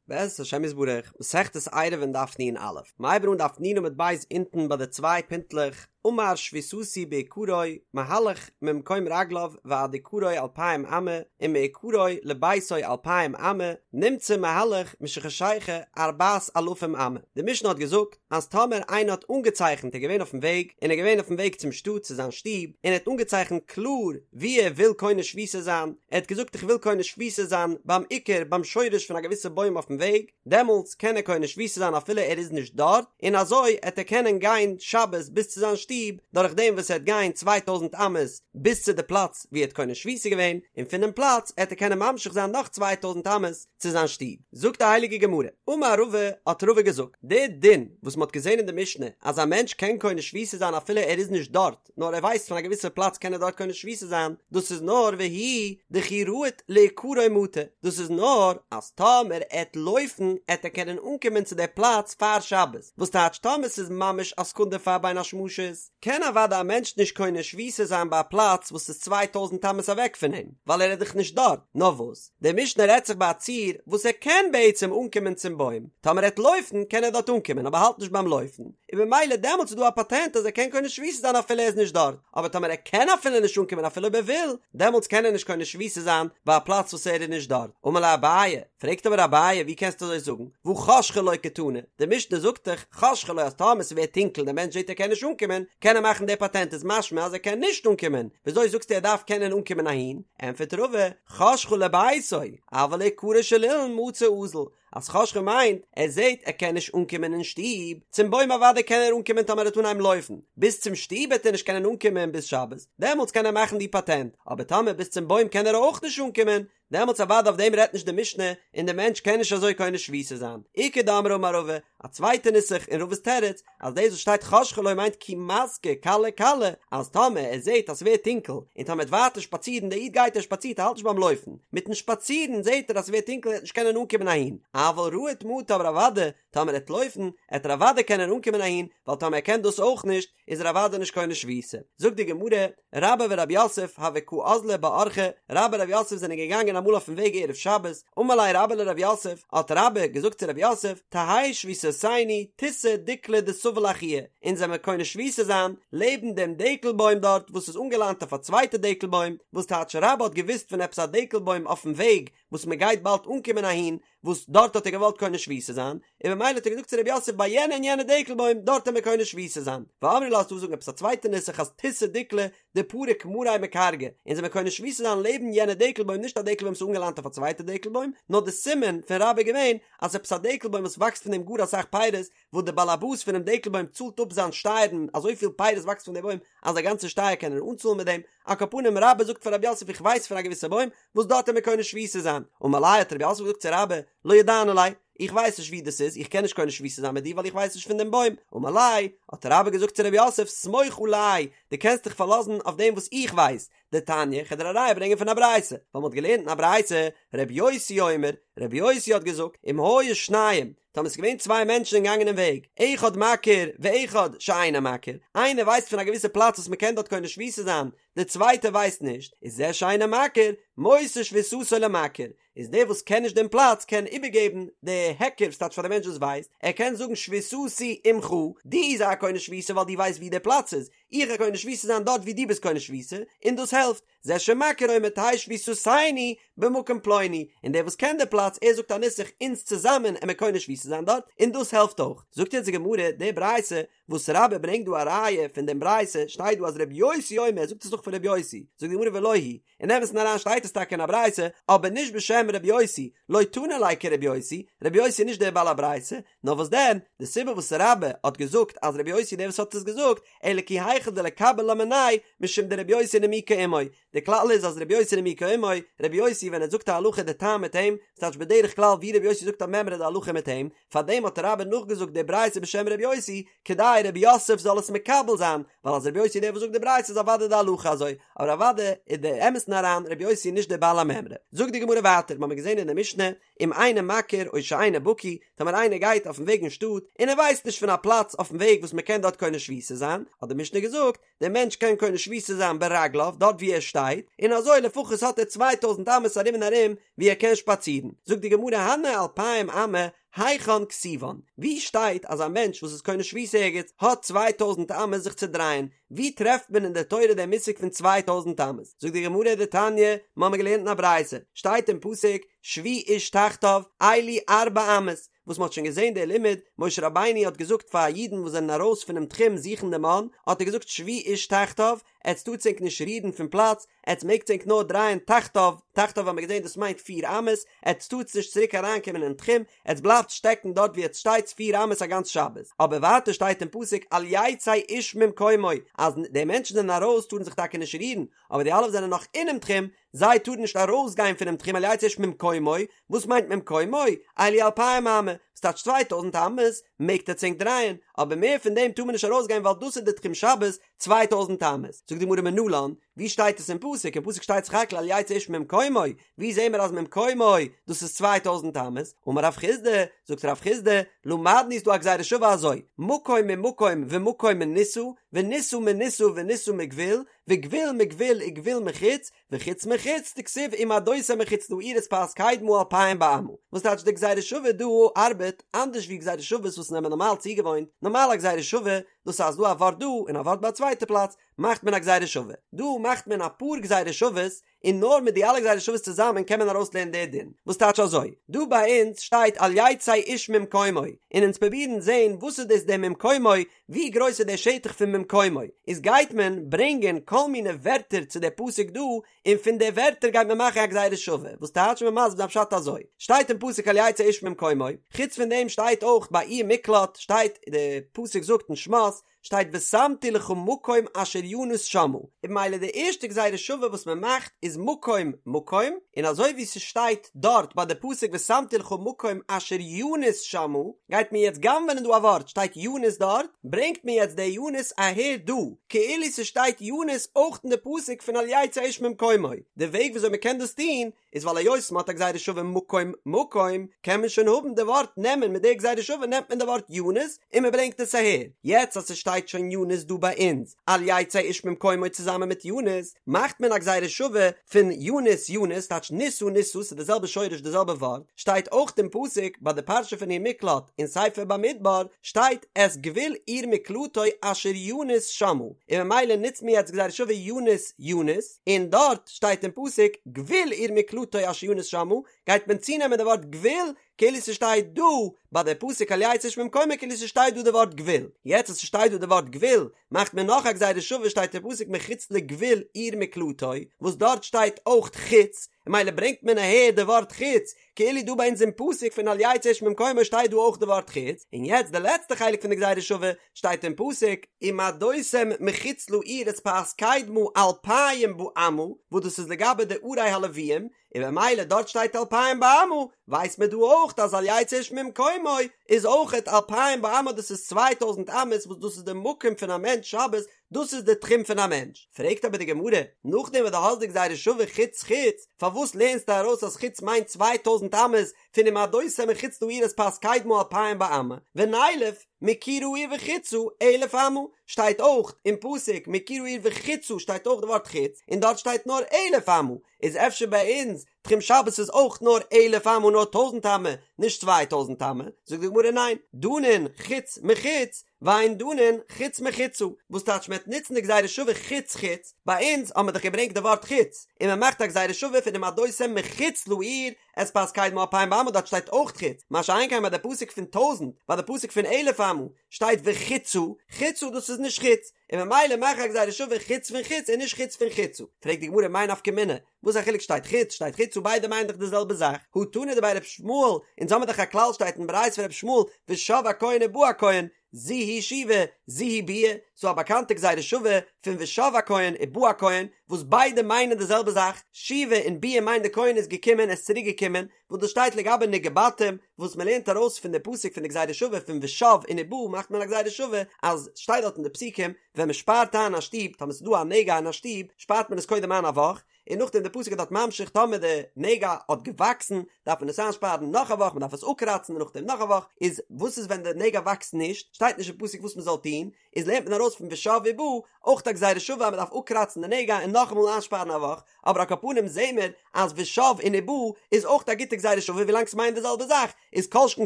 בעזרת השם יתברך, מסכת עירובין דף נ"א, מ'הייבן אן דף נ עמוד ב' אונטן ביי די צוויי פינטלעך, אמר שביתתי בעיקרו, מהלך ממקום רגליו ועד עיקרו אלפיים אמה, ומעיקרו לביתו אלפיים אמה, נמצא מהלך משחשיכה ארבעת אלפים אמה. די משנה האט געזאגט אז טאמער איינער האט אנגעצייכנט ער איז געווען אויפן וועג, און ער איז געווען אויפן וועג צום שטאט צו זיין שטוב, און ער האט אנגעצייכנט קלאר וואו ער וויל קונה שביתה זיין, ער האט געזאגט איך וויל קונה שביתה זיין ביים עיקר ביים שורש פון א געוויסע בוים אויפן וועג, דעמאלטס קען ער קונה שביתה זיין אפילו ער איז נישט דארט, און אזוי עט ער קענען גיין שבת ביז צו זיין שטוב דורך דעם וואס ער עט גיין 2000 אמות ביז צו די פלאץ וואו ער האט קונה שביתה געווען, און פונעם פלאץ עט ער קענען ממשיך זיין נאך 2000 אמות צו זיין שטוב. זאגט די הייליגע גמרא, אמר רבא, האט רבא געזאגט, די דין וואס מען האט געזען אין די משנה אז א מענטש קען קונה שביתה זיין אפילו ער איז נישט דארט, נאר ער ווייסט פון א געוויסע פלאץ קען ער דארט קונה שביתה זיין, דאס איז נאר והוא דכי רהיט לעיקרו מטי, דאס איז נאר אז טאמער ער עט לויפן עט ער קענען אנקומען צו די פלאץ פאר שבת, וואס טייטש טאמער ס'איז ממש א סעקונדע פאר בין השמשות, קען אוודאי א מענטש נישט קונה שביתה זיין ביי א פלאץ וואס איז 2000 אמות אוועק פון אים, ווייל ער איז דאך נישט דארט, נאר וואס? די משנה רעדט זיך ביי א ציור וואס ער קען בעצם אנקומען צום בוים, טאמער ער עט לויפן קען ער דארט אנקומען אבער האלט נישט ביים לויפן, און במילא דעמאלטס איז דא א פאטענט אז ער קען קונה שביתה זיין אפילו ער איז נישט דארט, אבער טאמער ער קען אפילו נישט אנקומען אפילו אויב ער וויל, דעמאלטס קען ער נישט קונה שביתה זיין ביי א פלאץ וואס ער איז נישט דארט. אמר ליה אביי, פרעגט אבער אביי ווי קענסטו אזוי זאגן, והא חשכה לו קתני, די משנה זאגט דאך חשכה לו אז טאמער ס'ווערט טונקל און דער מענטש זעט ער קען נישט אנקומען, קען ער מאכן די פאטענט איז משמע אז ער קען נישט אנקומען, וויאזוי זאגסטו ער דארף קענען אנקומען אהין? ענטפערט רבא, חשכה לביתו, אבל לעיקרו של אילן מצי אזיל, אז חשכה מיינט, ער זעט ער קען נישט אנקומען אין שטוב, צום בוים אוודאי קען ער אנקומען טאמער ער וועט אנהייבן לויפן, ביז צום שטוב וועט ער נישט קענען אנקומען ביז שבת, דעמאלטס קען ער מאכן די פאטענט, אבער טאמער ביז צום בוים קען ער אויך נישט אנקומען, דעמאלטס אוודאי אויף דעם רעדט נישט די משנה, און די מענטש קען נישט אזוי קונה שביתה זיין. איכא דאמרי אמר רבא, א צווייטע נוסח אין רבא'ס תירוץ, אז דאס וואס שטייט חשכה לו מיינט כי מסגי קלא קלא, אז טאמער ער זעט אז ס'ווערט טונקל, און טאמער ער וועט ווייטער שפאצירן, דער איד גייט ער שפאצירט ער האלט נישט ביים לויפן, מיטן שפאצירן זעט ער אז ס'ווערט טונקל ער וועט נישט קענען אנקומען אהין, אבל רהיט מטי אבער אוודאי טאמער ער וועט לויפן, עט ער אוודאי קענען אנקומען אהין, ווייל טאמער ער קען דאס אויך נישט, איז ער אוודאי נישט קונה שביתה. זאגט די גמרא, רבה ורב יוסף הוו קא אזלי באורחא, רבה און רב יוסף זענען געגאנגען אמאל אויפן וועג ערב שבת, אמר ליה רבה לרב יוסף, האט רבה געזאגט צו רב יוסף, תהא שביתתנו תותי דיקלא דסביל אחוה, אונז וועמיר קונה שביתה זיין לעבן דעם דקל בוים דארט וואס איז אנגעליינט אויף א צווייטע דקל בוים, וואס טייטש רבה האט געוואוסט פון עפעס א דקל בוים אויפן וועג וואס מען גייט באלד אנקומען אהין, וואס דארט האט ער געוואלט קונה שביתה זיין, און במילא האט ער געזאגט צו רב יוסף ביי יענע און יענע דקל בוים דארט וועט מען קונה שביתה זיין, ואמרי לה ס'איז דא וואס זאגן עפעס א צווייטע נוסח אז תותי דיקלא דפריק מאריה מכרגא, אונז וועמיר קונה שביתה זיין לעבן יענע דקל בוים נישט א דקל בוים וואס איז אנגעליינט אויף א צווייטע דקל בוים, נאר די סימן פון רבה איז געווען אז עפעס א דקל בוים וואס וואקסט פון דעם גאר אסאך פירות, וואס דער באלעבאס פונעם דקל בוים צאלט אפ זיין שטייערן אזויפיל פירות וואקסט פון די בוים אז א גאנצע שטייער קען ער אנצאלן מיט דעם, על כל פנים רבה זאגט פאר רב יוסף איך ווייס פון א געוויסע בוים וואס דארט וועט מען קונה שביתה זיין, אמר ליה האט רב יוסף געזאגט צו רבה לא ידענא ליה, איך ווייס נישט ווי דאס איז, איך קען נישט קונה שביתה זיין מיט דיר ווייל איך ווייס נישט פון דעם בוים, אמר ליה, האט רבה געזאגט צו רב יוסף סמוך עלי, דו קענסט דיך פארלאזן אויף דעם וואס איך ווייס, דתניא, איך וועל דיר א ראיה ברענגען פון א ברייתא, ווייל מ'האט געלערנט אין א ברייתא, רבי יוסי אומר, רבי יוסי האט געזאגט, אם היו שניים, טאמער ס'איז געווען צוויי מענטשן געגאנגען אין וועג, אחד מכיר ואחד שאינו מכיר, איינער ווייסט פון א געוויסע פלאץ וואס מ'קען דארט קונה שביתה זיין, דער צווייטער ווייסט נישט, איז זה שאינו מכיר, מוסר שביתתו למכיר, איז דער וואס קען נישט דעם פלאץ קען איבערגעבן די היכר, ס'טייטש פאר די מענטש וואס ווייסט, ער קען זאגן שביתתי עמך, דו זיי קונה שביתה ווייל דו ווייסט ווי דער פלאץ איז, איך גיי קונה שביתה זיין דארט ווי דו ביסט קונה שביתה, און דאס העלפט. זה שמכיר אומר תהא שביתתנו במקום פלוני, און דער וואס קען די פלאץ ער זאגט א נוסח אונז צוזאמען עמיר קונה שביתה זיין דארט, און דאס העלפט אויך. זאגט יעצט די גמרא, די ברייתא וואס רבה ברענגט דא א ראיה פון דעם ברייתא, שטייט דא אז רבי יוסי אומר, ער זאגט עס דאך פון רבי יוסי, זאגט די גמרא ולא היא אין אמת'ן אריין שטייט עס טאקע אין א ברייתא, אבער נישט בשם רבי יוסי, לא תנא ליה כרבי יוסי, רבי יוסי איז נישט דער בעל הברייתא, נאר וואס דען, די סיבה וואס רבה האט געזאגט אז רבי יוסי איז דער וואס האט עס געזאגט, אלא כי היכי דליקבל לה מיניה, משום דרבי יוסי נימוקו עמו, די כלל איז אז רבי יוסי נימוקו עמו, רבי יוסי ווען ער זאגט א הלכה די טעם מיט אים, ס'טייטש בדרך כלל ווי רבי יוסי זאגט א מימרא די הלכה מיט אים, פארדעם האט רבה נאכגעזאגט די ברייתא בשם רבי יוסי, כדי רב יוסף זאל עס מקבל זיין, ווייל אז רבי יוסי איז דער וואס זאגט די ברייתא איז אוודאי די הלכה אזוי, אבער אוודאי איז די אמת'ן אריין רבי יוסי נישט דער בעל המימרא. זאגט די גמרא ווייטער, מ'האמיר געזען אין די משנה, אם אינו מכיר או שאינו בקי, טאמער איינער גייט אויפן וועג אין שטאט, און ער ווייסט נישט פון א פלאץ אויפן וועג וואס מ'קען דארט קונה שביתה זיין, האט די משנה געזאגט, דער מענטש קען קונה שביתה זיין ברגליו, דארט וואו ער שטייט. שטייט, און אזוי לפחות האט ער 2000 אמות ארום און ארום ווי ער קען שפאצירן. זאגט די גמרא הני אלפיים אמה היכן כתיבן, ווי שטייט אז א מענטש וואס איז קונה שביתה ערגעץ האט 2000 אמות זיך צו דרייען, ווי טרעפט מען אין די תורה דעם מושג פון 2000 אמות? זאגט די גמרא דתניא, מ'האמיר געלערנט אין א ברייתא, שטייט אין פסוק שבו איש תחתיו אלו ארבע אמות, וואס מ'האט שוין געזען די לימוד, משה רבינו האט געזאגט פאר אידן וואס זענען ארויס פונעם תחום זוכן די מן, האט ער געזאגט שבו איש תחתיו, עטס טארטס ענק נישט רירן פון פלאץ, עטס מעגטס ענק נאר דרייען תחתיו, תחתיו האבן מיר געזען דאס מיינט פיר אמות, עטס טארטס נישט צוריק אריינקומען אין תחום, עטס בלייבטס שטעקן דארט ווי עטס שטייטס פיר אמות א גאנץ שבת. אבער ווייטער שטייט אין פסוק אל יצא איש ממקומו, אז די מענטשן זענען ארויס טארן זיך טאקע נישט רירן, אבער די אלע וואס זענען נאך אינעם תחום, זיי טארן נישט ארויסגיין פונעם תחום אל יצא איש ממקומו, וואס מיינט ממקומו? אלו אלפיים אמה, וואס טייטש 2000 אמות, מעגט עטס ענק דרייען, אבער מער פון דעם טאר מען נישט ארויסגיין ווייל דאס איז די תחום שבת, 2000 אמות. זאגט די גמרא מנלן, ווי שטייט עס אין פסוק? אין פסוק שטייט סך הכל אל יצא איש ממקומו, ווי זעהן מיר אז ממקומו דאס איז 2000 אמות? אמר רב חסדא, זאגט רב חסדא, למדנו איז דא א גזירה שווה אזוי, מקום ממקום ומקום מנסה, ונסה מנסה ונסה מגבול, וגבול מגבול וגבול מחוץ, וחוץ מחוץ, דכתיב ומדותם מחוץ לעיר את פאת קדמה אלפים באמה. וואס טייטש די גזירה שווה דא ארבעט אנדערש ווי גזירה שוות וואס אונז האבן נארמאל צוגעוואוינט, נארמאל א גזירה שווה דאס אז דא א ווארט דא און א ווארט ביי א צווייטע פלאץ מאכט מען א גזירה שווה, דא מאכט מען אפאר גזירה שוות און נאר מיט די אלע גזירה שוות צוזאמען קען מען ארויסלערנען די דין, וואס טייטש אזוי? דא ביי אונז שטייט אל יצא איש ממקומו, און אונז פרובירן זעהן וואס איז דאס דער ממקומו, ווי גרויס איז דער שטח פון ממקומו, איז גייט מען ברענגען כל מיני ווערטער צו דער פסוק דא, און פון די ווערטער גייט מען מאכן א גזירה שווה, וואס טייטש מען מסביר זיין פשט אזוי, שטייט אין פסוק אל יצא איש ממקומו, חוץ פון דעם שטייט אויך ביי עיר מקלט, שטייט די פסוק זאגט אין שמות, שטייט ושמתי לך מקום אשר ינוס שמה, און במילא די ערשטע גזירה שווה וואס מען מאכט איז מקום מקום, און אזוי ווי ס'שטייט דארט ביי די פסוק ושמתי לך מקום אשר ינוס שמה, גייט מען יעצט גנב'ענען דא א ווארט, שטייט ינוס דארט, ברענגט מען יעצט די ינוס אהער דא, כאילו ס'שטייט ינוס אויך אין די פסוק פון אל יצא איש ממקומו, די וועג וויאזוי מ'קען דאס טון, איז ווייל היות מ'האט א גזירה שווה מקום מקום, קען מען שוין האבן די ווארט נעמען מיט די גזירה שווה נעמט מען די ווארט ינוס און מ'ברענגט עס אהער, יעצט אז ס'שטייט שוין ינוס דא ביי אונז, אל יצא איש ממקומו צוזאמען מיט ינוס, מאכט מען א גזירה שווה פון ינוס ינוס טייטש נסה נסה ס'איז די זעלבע שורש די זעלבע ווארט, שטייט אויך אין פסוק ביי די פרשה פון עיר מקלט אין ספר במדבר שטייט את גבול עיר מקלטו אשר ינוס שמה און ממילא נוצט מען יעצט גזירה שווה ינוס ינוס און דארט שטייט אין פסוק גבול עיר מקלטו אשר ינוס שמה גייט מען צונעמען די ווארט גבול כאילו ס'שטייט דא ביי די פסוק אל יצא איש ממקומו כאילו ס'שטייט דא די ווארט גבול, יעצט אז ס'שטייט דא די ווארט גבול מאכט מען נאך א גזירה שווה שטייט אין פסוק מחוץ לגבול עיר מקלטו וואס דארט שטייט אויך חוץ און ממילא ברענגט מען אהער די ווארט חוץ כאילו דא ביי אונז אין פסוק פון אל יצא איש ממקומו שטייט דא אויך די ווארט חוץ, און יעצט די לעצטע חלק פון די גזירה שווה שטייט אין פסוק ומדותם מחוץ לעיר את פאת קדמה אלפיים באמה וואס דאס איז לגבי די ערי הלוויים און במילא דארט שטייט אלפיים באמה, ווייסט מען דא אויך אז אל יצא איש ממקומו איז אויכעט אלפיים באמה דאס איז 2000 אמות וואס דאס איז די מקום פון א מענטש שבת, דאס איז די תחום פון א מענטש. פרעגט אבער די גמרא, נאכדעם וואס דו האסט די גזירה שווה חוץ חוץ, פארוואס לערנסטו ארויס אז חוץ מיינט 2000 אמות פון ומדותם מחוץ לעיר את פאת קדמה אלפיים באמה, ונילף מקיר העיר וחוצה אלף אמה, שטייט אויך אין פסוק מקיר העיר וחוצה שטייט אויך די ווארט חוץ, און דארט שטייט נאר אלף אמה, איז אפשר ביי אונז תחום שבת איז אויך נאר אלף אמה נאר טויזנט אמה נישט 2000 אמה, זאגט די גמרא ניין, דנין חוץ מחוץ ואין דנין חוץ מחוצה, וואס טייטש מען וועט נוצן די גזירה שווה חוץ חוץ, ביי אונז האט מען דאך געברענגט די ווארט חוץ, און מען מאכט א גזירה שווה פון ומדותם מחוץ לעיר את פאת קדמה אלפיים באמה דארט שטייט אויך חוץ, מה שאין כן ביי די פסוק פון טויזנט, ביי די פסוק פון אלף אמה שטייט וחוצה, חוצה דאס איז נישט חוץ, און ממילא מאך א גזירה שווה חוץ פון חוץ און נישט חוץ פון חוצה. פרעגט די גמרא מאי נפקא מינה, וואס א חילוק שטייט חוץ שטייט חוצה ביידע מיינען דאך די זעלבע זאך, הא תנא דבי ר' ישמעאל, אונז האמיר דאך א כלל שטייט אין ברייתא פון ר' ישמעאל ושב הכהן ובא הכהן, זו היא שיבה זו היא ביאה, ס'דא א באקאנטע גזירה שווה פון ושב הכהן ובא הכהן וואס ביידע מיינען די זעלבע זאך, שיבה און ביאה מיינט די כהן איז געקומען ער איז צוריק געקומען, וואס דאס שטייט לגבי נגעי בתים, וואס מען לערנט ארויס פון די פסוק פון די גזירה שווה פון ושב און ובא מאכט מען א גזירה שווה אז שטייט דארט אין די פסוקים ווען מען שפארט איין א שטוב טאמער ס'איז דא א נגע אין א שטוב שפארט מען עס קודם איין א וואך. און נאכדעם די פסוק איז דארט ממשיך טאמער די נגע האט געוואקסן דארף מען עס איינשפארן נאך א וואך, מען דארף עס אפקראצן און נאכדעם נאך א וואך, איז וואס איז ווען די נגע וואקסט נישט, שטייט נישט אין פסוק וואס מען זאל טון, איז לערנט מען ארויס פון ושב ובא אויך א גזירה שווה אז מען דארף אפקראצן די נגע און נאכאמאל איינשפארן א וואך, אבער על כל פנים זעהן מיר אז ושב און ובא איז אויך א גוטע גזירה שווה ווילאנג ס'מיינט די זעלבע זאך, איז כל שכן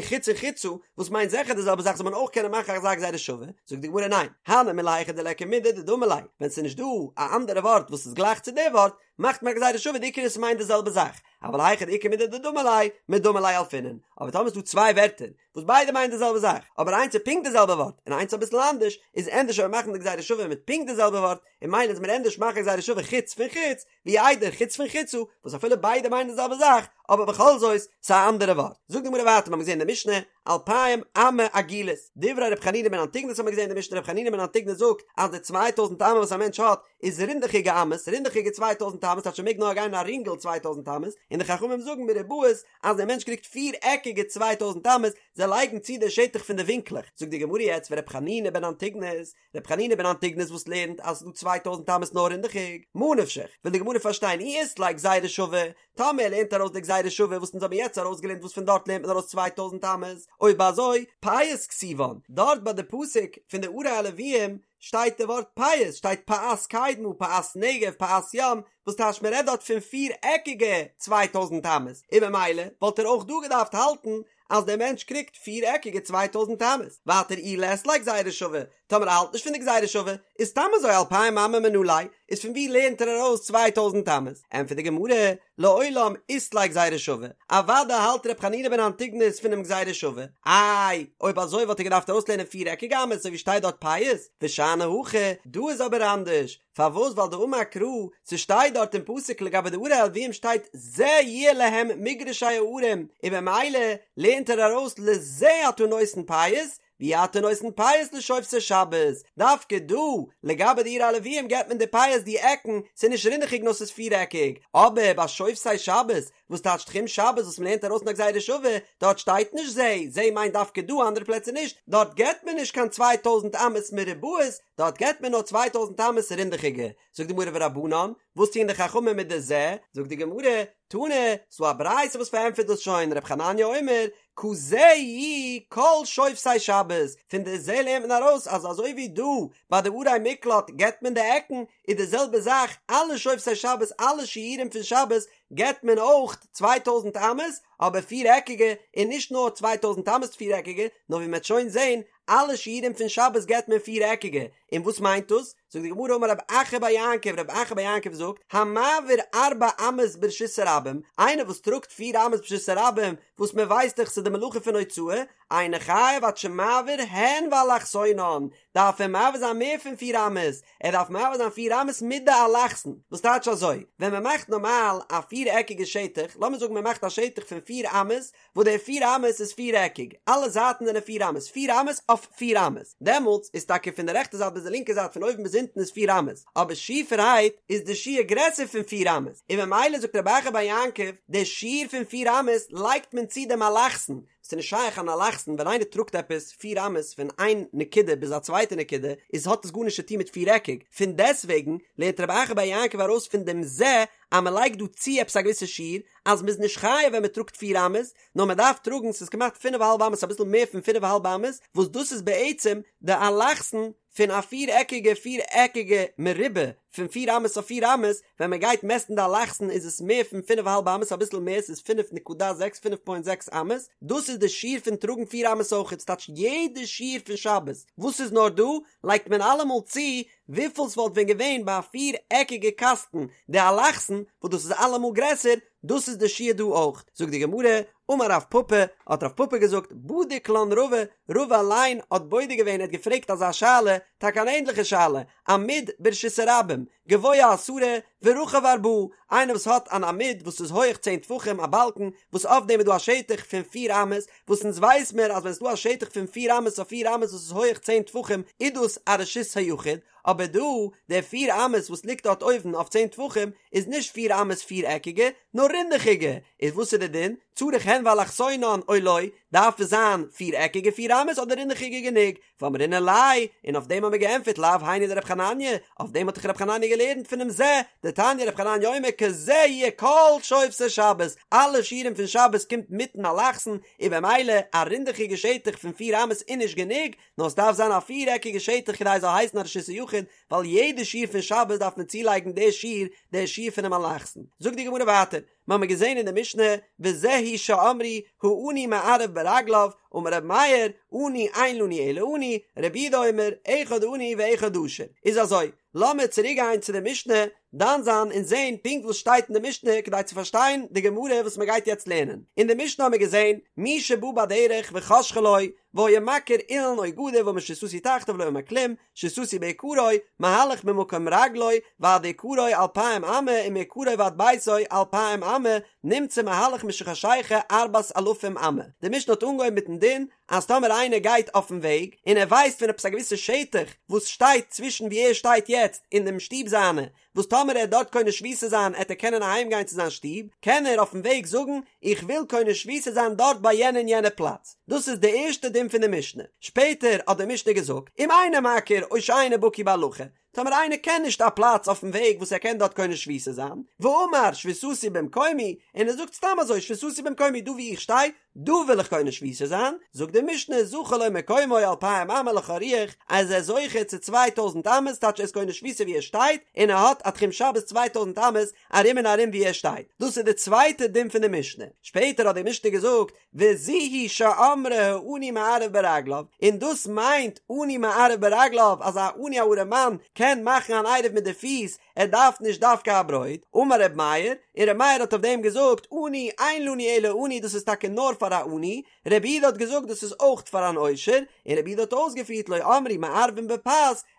חוץ און חוצה וואס מיינט זיכער די זעלבע זאך זאל מען אויך קענען מאכן אזא גזירה שווה, זאגט די גמרא ניין, הני מילי היכא דליכא מידי דדמי ליה, ווען ס'איז נישט דא א אנדערע ווארט וואס איז גלייך צו די ווארט, מאכט מען א גזירה שווה די עיקר איז ס'מיינט די זעלבע זאך, אבל היכא דאיכא מידי דדמי ליה, מדמי ליה ילפינן, אבער טאמער איז דא צוויי ווערטער וואס ביידע מיינען די זעלבע זאך, אבער איינס איז פונקט די זעלבע ווארט און איינס אביסל אנדערש, איז ענדערש זאל מען מאכן די גזירה שווה מיט פונקט די זעלבע ווארט, און ממילא איז מען ענדערש מאכן גזירה שווה חוץ פון חוץ, ווי איידער חוץ פון חוצה, וואס אפילו ביידע מיינען די זעלבע זאך, אבער בכל זאת, ס'איז א אנדערע ווארט. זאגט די גמרא ווייטער, מ'האמיר געזען אין די משנה, אלפיים אמה עגולות, דברי ר' חנינא בן אנטיגנוס האמיר געזען אין די משנה ר' חנינא בן אנטיגנוס זאגט אז די צוויי טויזנט אמה וואס א מענטש האט, איז רינדעכיגע אמות, רינדעכיגע צוויי טויזנט אמות, טייטש ער מעג נאר גיין אין א רינגל צוויי טויזנט אמות, און די חכמים זאגן מרובעות אז דער מענטש קריגט פיר עקיגע צוויי טויזנט אמות, זיי לייגן צו די שטח פון די ווינקלעך, זאגט די גמרא יעצט ור' חנינא בן אנטיגנוס, ר' חנינא בן אנטיגנוס וואס לערנט אז ס'איז דא צוויי טויזנט אמות נאר רינדעכיג, מה נפשך, וויל די גמרא פארשטיין אי אית ליה גזירה שווה, טאמער ער לערנט ארויס די גזירה שווה וואס אונז האבן יעצט ארויסגעלערנט וואס פון דארט לערנט מען ארויס צוויי טויזנט אמות, אויב אזוי, פאות כתיבן, דארט ביי די פסוק פון די ערי הלוויים שטייט די ווארט פאות, שטייט פאת קדמה, פאת נגב, פאת ים, וואס טייטש מען רעדט דארט פון פיר עקיגע צוויי טויזנט אמות, און ממילא וואלט ער אויך דא געדארפט האלטן אז דער מענטש קריגט פיר עקיגע צוויי טויזנט אמות, ווייטער אי לית ליה גזירה שווה, טאמער ער האלט נישט פון די גזירה שווה, איז סתם אזוי אלפיים אמה מנא ליה, איז פון ווי לערנט ער ארויס צוויי טויזנט אמות? ענטפערט די גמרא, לעולם אית ליה גזירה שווה, אוודאי האלט ר' חנינא בן אנטיגנוס פונעם גזירה שווה, איי, אויב אזוי וואלט ער געדארפט ארויסלערנען פיר עקיגע אמות אזוי ווי שטייט דארט פאות, ושאני הכא, דא איז אבער אנדערש, פארוואס ווייל דאמר קרא, ס'שטייט דארט אין פסוק לגבי די ערי הלוויים שטייט זה יהיה להם מגרשי הערים, און במילא לערנט ער ארויס לזה אתה נותן פאות, ואי אתה נותן פאות לשובתי שבת, דווקא דא, לגבי די ערי הלוויים געבט מען די פאות די עקן, ס'איז נישט רינדעכיג נאר ס'איז פירעקיג, אבער ביי שובתי שבת, וואס טייטש תחום שבת וואס מ'לערנט ארויס אין א גזירה שווה, דארט שטייט נישט זה, זה מיינט דווקא דא אנדערע פלעצער נישט, דארט געבט מען נישט קיין צוויי טויזנט אמות מרובעות, דארט געבט מען נאר צוויי טויזנט אמות רינדעכיגע. זאגט די גמרא ורבנן, וואס טוען די חכמים מיט די זה? זאגט די גמרא, תנא, ס'דא א ברייתא וואס פארענטפערט דאס שוין, ר' חנניה אומר, כזה יהו כל שובתי שבת, פון די זה לערנט מען ארויס אז אזוי ווי דא ביי די ערי מקלט געבט מען די עקן, איז די זעלבע זאך אלע שובתי שבת אלע שיעורים פון שבת געבט מען אויך צוויי טויזנט אמות, אבער פיר עקיגע, און נישט נאר צוויי טויזנט אמות פיר עקיגע, נאר ווי מען וועט שוין זען, אלע שיעורים פון שבת געבט מען פיר עקיגע, און וואס מיינט דאס? זאגט די גמרא אמר רב אחא בר יעקב, רב אחא בר יעקב זאגט, המעביר ארבע אמות ברשות הרבים, איינער וואס טראגט פיר אמות ברשות הרבים, וואס מען ווייסט דאך ס'איז די מלאכה פון הוצאה, אינו חייב עד שמעביר הן ואלכסונן, דארף ער מעביר זיין מער פון פיר אמות, ער דארף מעביר זיין פיר אמות מיט די אלכסון, וואס טייטש אזוי, ווען מען מאכט נארמאל א פיר עקיגע שטח, לאמיר זאגן מען מאכט א שטח פון פיר אמות, וואס די פיר אמות איז פיר עקיג, אלע זייטן זענען פיר אמות, פיר אמות אויף פיר אמות, דעמאלטס איז טאקע פון די רעכטע זייט ביז די לינקע זייט פון אויבן ביז אונטן איז פיר אמות, אבער שיפערהייט איז די שיעור גרעסער פון פיר אמות, און ממילא זאגט רב אחא בר יעקב, די שיעור פון פיר אמות לייגט מען צו דעם אלכסון, ס'איז נישט שייך אן אלכסון ווען איינער טראגט עפעס פיר אמות פון איין נקודה ביז א צווייטע נקודה איז האט עס גארנישט צו טון מיט פיר עקיג, פון דעסוועגן לערנט רב אחא בר יעקב ארויס פון דעם זה אז מען לייגט דא צו עפעס א געוויסע שיעור אז מען איז נישט חייב ווען מען טראגט פיר אמות, נאר מען דארף טראגן ס'איז כמעט פינף א האלב אמות אביסל מער פון פינף א האלב אמות, וואס דאס איז בעצם די אלכסון פון א פיר עקיגע פיר עקיגע מרובע פון פיר אמות אויף פיר אמות, ווען מען גייט מעסטן די אלכסון איז עס מער פון פינף א האלב אמות אביסל מער ס'איז פינף נקודה זעקס פינף פוינט זעקס אמות, דאס איז די שיעור פון טראגן פיר אמות אויכעט, ס'טייטש יעדע שיעור פון שבת וואס איז נאר דא לייגט מען אלעמאל צו וויפיל ס'וואלט ווען געווען ביי א פיר עקיגע קאסטן די אלכסון וואס דאס איז אלעמאל גרעסער, דאס איז די שיעור דא אויך. זאגט די גמרא, אמר רב פפא, האט רב פפא געזאגט, בדיק לן רבא, רבא אליין האט בודק געווען ער האט געפרעגט אזא שאלה, טאקע אן ענדליכע שאלה, עמוד ברשות הרבים, גבוה עשרה ורחב ארבעה, איינער וואס האט אן עמוד וואס איז הויעך צען טפחים א באלקן וואס אויף דעם איז דא א שטח פון פיר אמות, וואס אונז ווייס מיר אז ווען ס'דא א שטח פון פיר אמות אויף פיר אמות וואס איז הויעך צען טפחים איז דאס א רשות היחיד, אבער דא די פיר אמות וואס ליגט דארט אויבן אויף צען טפחים איז נישט פיר אמות פיר עקיגע נאר רינדעכיגע, איז וואס איז די דין? צריך הן הן ואלכסונן או לא, דארף עס זיין פיר עקיגע פיר אמות אדער רינדעכיגע גענוג? ואמרינן ליה, און אויף דעם האבן מיר געענטפערט לאו היינו דרב חנניה, אויף דעם האט דאך רב חנניה געלערנט פונעם זה, דתניא רב חנניה אומר כזה יהיה כל שובתי שבת, אלע שיעורים פון שבת קומט מיטן אלכסון, און במילא א רינדעכיגע שטח פון פיר אמות איז נישט גענוג, נאר עס דארף זיין א פיר עקיגע שטח כדי עס זאל הייסן א רשות היחיד, ווייל יעדע שיעור פון שבת דארף מען צולייגן די שיעור, די שיעור פונעם אלכסון. זאגט די גמרא ווייטער, מ'האמיר געזען אין די משנה, וזהו שאמרו העני מערב ברגליו, אמר ר' מאיר, עני אין לנו אלא עני, רבי יהודה אומר, אחד עני ואחד עשיר. איז אזוי, לאמיר צוריק גיין צו די משנה, דן זיין און זען פונקט וואס שטייט אין די משנה כדי צו פארשטיין די גמרא וואס מ'גייט יעצט לערנען. אין די משנה האמיר געזען, מי שבא בדרך וחשכה לו, והיה מכיר אילן או גדר ואמר שביתתי תחתיו ולא אמר כלום, שביתתי מעיקרו, מהלך ממקום רגלו ועד עיקרו אלפיים אמה ומעיקרו ועד ביתו אלפיים אמה, נמצא מהלך משחשיכה ארבעת אלפים אמה. די משנה האט אנגעהויבן מיטן דין אז טאמער איינער גייט אויפן וועג און ער ווייסט פון עפעס א געוויסע שטח וואס שטייט צווישן ווי ער שטייט יעצט און דעם שטוב זיינע, וואס טאמער ער וועט דארט קונה שביתה זיין עט ער קענען אהיים גיין צו זיין שטוב, קען ער אויפן וועג זאגן איך וויל קונה שביתה זיין דארט ביי יענע און יענע פלאץ. דאס איז די ערשטע דין פון די משנה. שפעטער האט די משנה געזאגט, אם אינו מכיר או שאינו בקי בהלכה, טאמער איינער קען נישט א פלאץ אויפן וועג וואס ער קען דארט קונה שביתה זיין, ואמר שביתתי במקומי, און ער זאגט סתם אזוי שביתתי במקומי דא וואו איך שטיי, דא וויל איך קונה שביתה זיין, זאגט די משנה זכה לו מקומו אלפיים אמה לכל רוח, אז ער איז זוכה צו 2000 אמות טייטש ער איז קונה שביתה ווי ער שטייט, און ער האט א תחום שבת 2000 אמות ארום און ארום ווי ער שטייט, דאס איז די צווייטע דין פון די משנה, שפעטער האט די משנה געזאגט וזו היא שאמרו העני מערב ברגליו, און דאס מיינט עני מערב ברגליו אז א עני א ארעמאן קען מאכן אן עירוב מיט די פיס, ער דארף נישט דווקא א ברויט, אמר ר' מאיר, און ר' מאיר האט אויף דעם געזאגט, עני אין לנו אלא עני דאס איז טאקע נאר פאר א עני, רבי יהודה האט געזאגט דאס איז אויך פאר אן עושר, און רבי יהודה האט אויסגעפירט לא אמרו מערבין בפת,